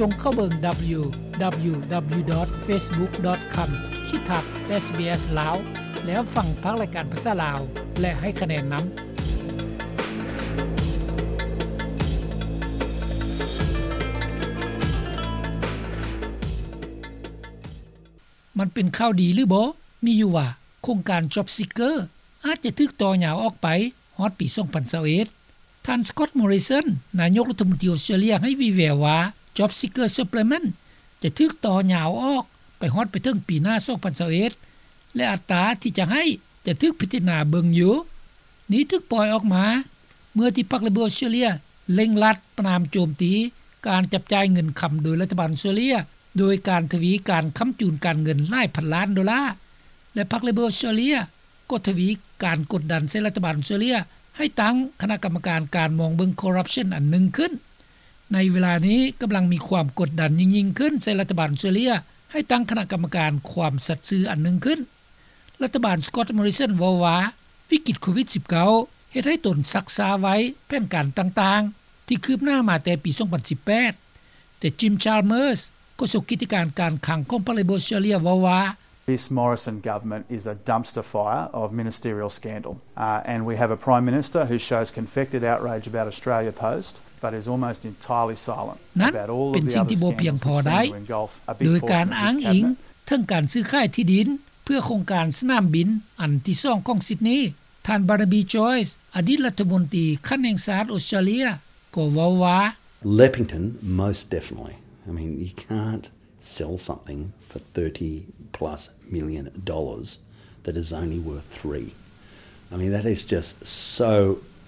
ຈົ່ງເຂົ້າເບິ່ງ www.facebook.com/sbs ລາວ ແລ້ວຟັງພາກລາຍການພາສາລາວ ແລະ ໃຫ້ຄະແນນນຳ. ມັນເປັນຂ່າວດີຫຼືບໍ່? ມີຢູ່ວ່າ ໂຄງການ Job Seeker ອາດຈະຖືກຕໍ່ຍາວອອກໄປຮອດປີສອງພັນຊາວເອັດ. ທ່ານ Scott Morrison ນາຍົກລັດຖະມົນຕີອົດສະຕຣາເລຍ ໃຫ້ວີແວວວ່າ Job Seeker Supplement ຈະຖືກຕໍ່ຍາວອອກໄປຮອດໄປເຖິງປີໜ້າສອງພັນຊາວເອັດ ແລະ ອັດຕາທີ່ຈະໃຫ້ຈະຖືກພິຈາລະນາເບິ່ງຢູ່. ນີ້ຖືກປ່ອຍອອກມາ ເມື່ອທີ່ພັກ Labor ອົດສະຕຣາເລຍເລັ່ງລັດປະນາມໂຈມຕີການຈັບຈ່າຍເງິນຄຳໂດຍລັດຖະບານອົດສະຕຣາເລຍ ໂດຍການທະວີການຄ້ຳຈູນການເງິນຫຼາຍພັນລ້ານໂດລາ ແລະ ພັກ Labor ອົດສະຕຣາເລຍກໍທະວີການກົດດັນໃສ່ລັດຖະບານອົດສະຕຣາເລຍ ໃຫ້ຕັ້ງຄະນະກຳມະການການມອງເບິ່ງ corruption ອັນໜຶ່ງຂຶ້ນ. ໃນເວລານີ້ກຳລັງມີຄວາມກົດດັນຍິ່ງໆຂຶ້ນໃສ່ລັດຖະບານອົດສະຕຣາເລຍ ໃຫ້ຕັ້ງຄະນະກຳມະການຄວາມສັດຊື່ອັນໜຶ່ງຂຶ້ນ. ລັດຖະບານ Scott Morrison ເວົ້າວ່າ ວິກິດໂຄວິດສິບເກົ້າ ເຮັດໃຫ້ຕົນຊັກຊ້າໄວ້ແຜນການຕ່າງໆ ທີ່ຄືບໜ້າມາແຕ່ປີສອງພັນສິບແປດ ແຕ່ Jim Chalmers ໂຄສົກກິດຈະການການຄັງຂອງພັກ Labor ອົດສະຕຣາເລຍ ເວົ້າວ່າ This Morrison government is a dumpster fire of ministerial scandal, uh, and we have a Prime Minister who shows confected outrage about Australia Post, but is almost entirely silent ນັ້ນ about all of ເປັນ the ສິ່ງ other ທີ່ບໍ່ພຽງ scandals ພໍ which ໄດ້ seem to engulf a big ໂດຍການ portion of his ອ້າງອີງ cabinet. ເຖິງການຊື້ຂາຍທີ່ດິນເພື່ອໂຄງການສະໜາມບິນອັນທີສອງຂອງ Sydney. ທ່ານ Barnaby Joyce ອະດີດລັດຖະມົນຕີຂັ້ນແຫ່ງຊາດອົດສະຕຣາເລຍ ກໍເວົ້າວ່າ Leppington, most definitely. I mean, you can't sell something for thirty plus million dollars that is only worth three. I mean, that is just so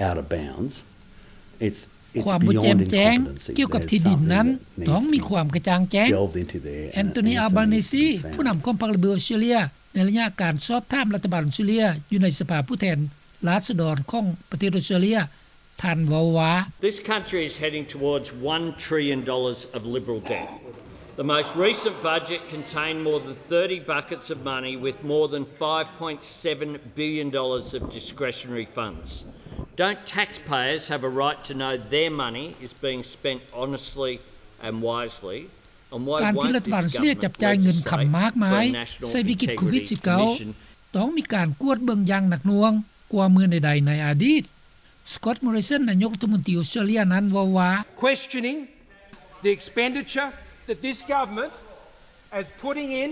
out of bounds. It's, it's ຄວາມບໍ່ແຈ່ມແຈ້ງ beyond incompetency. ກ່ຽວກັບທີ່ດິນນັ້ນ There's something that needs to be delved into there, and it needs to be found. ທ່ອນ Scott Morrison ອະດີດລັດຖະມົນຕີຂັ້ນແຫ່ງຊາດອົດສະຕຣາເລຍ ແອນໂທນີ ອາລບານີຊີ ຜູ້ນຳຂອງພັກ Labor ອົດສະຕຣາເລຍ ຢູ່ໃນສະພາຜູ້ແທນລາຊະດອນຂອງປະເທດອົດສະຕຣາເລຍ ທ່ານເວົ້າວ່າ This country is heading towards one trillion dollars of Liberal debt. The most recent budget contained more than thirty buckets of money with more than five point seven billion dollars of discretionary funds. Don't taxpayers have a right to know their money is being spent honestly and wisely? ການທີ່ລັດຖະບານເສຍຈັບຈ່າຍເງິນຄຳມາກມາຍໃສ່ວິກິດໂຄວິດສິບເກົ້າ ຕ້ອງມີການກວດເບິ່ງຢ່າງໜັກໜ່ວງກວ່າເມື່ອໃດໆໃນອະດີດ. Scott Morrison ນາຍົກລັດຖະມົນຕີອົດສະຕຣາເລຍນັ້ນເວົ້າວ່າ Questioning the expenditure that this government is putting in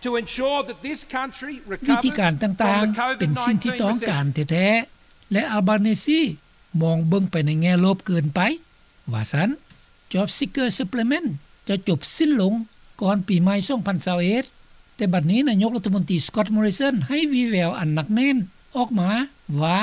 to ensure that this country recovers from the COVID nineteen recession. ວິທີການຕ່າງໆເປັນສິ່ງທີ່ຕ້ອງການແທ້ໆ ແລະ ອາລບານີຊີມອງເບິ່ງໄປໃນແງ່ລົບເກີນໄປ ວ່າຊັ້ນ. Job Seeker Supplement ຈະຈົບສິ້ນລົງກ່ອນປີໃໝ່ສອງພັນຊາວເອັດ ແຕ່ບັດນີ້ນາຍົກລັດຖະມົນຕີ Scott Morrison ໃຫ້ວີແວວອັນໜັກແໜ້ນອອກມາວ່າ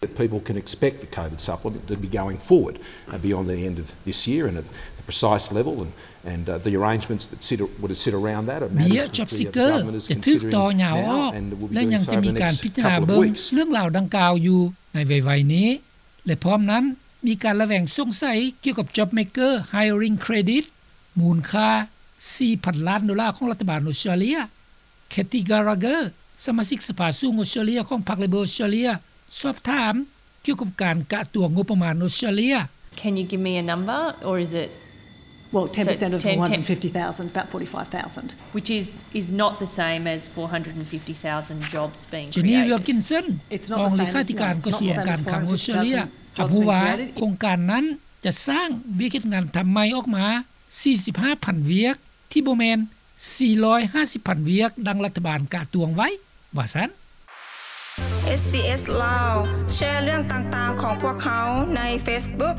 That people can expect the COVID supplement to be going forward, uh, beyond the end of this year and at the precise level and, and, uh, the arrangements that sit, would sit around that are matters that the government is considering now and will be going through the next couple of weeks. ເບ້ຍ Job Seeker ຈະຖືກຕໍ່ຍາວອອກ ແລະ ຍັງຈະມີການພິຈາລະນາເບິ່ງເລື່ອງລາວດັ່ງກ່າວຢູ່ໃນໄວໆນີ້. ແລະ ພ້ອມນັ້ນ ມີການລະແວງສົງໄສກ່ຽວກັບ JobMaker Hiring Credit ມູນຄ່າສີ່ພັນລ້ານໂດລາຂອງລັດຖະບານອົດສະຕຣາເລຍ. Katy Gallagher ສະມາຊິກສະພາສູງອົດສະຕຣາເລຍຂອງພັກ Labor ອົດສະຕຣາເລຍ ສອບຖາມກ່ຽວກັບການກະຕົວງົບປະມານອົດສະຕຣາເລຍ. Can you give me a number, or is it Well, ten percent of four hundred fifty thousand, about forty-five thousand. Which is, is not the same as four hundred and fifty thousand jobs being created. Jenny Wilkinson ຮອງເລຂາທິການກະຊວງການຄັງອົດສະຕຣາເລຍ ຮັບຮູ້ວ່າໂຄງການນັ້ນຈະສ້າງວຽກເຮັດງານທຳໃໝ່ອອກມາສີ່ສິບຫ້າພັນວຽກ ທີ່ບໍ່ແມ່ນສີ່ຮ້ອຍຫ້າສິບພັນວຽກ ດັ່ງລັດຖະບານກະຕວງໄວ້ ວ່າຊັ້ນ. ເອສບີເອສ ລາວ ແຊເລື່ອງຕ່າງໆຂອງພວກເຮົາໃນເຟສບຸກ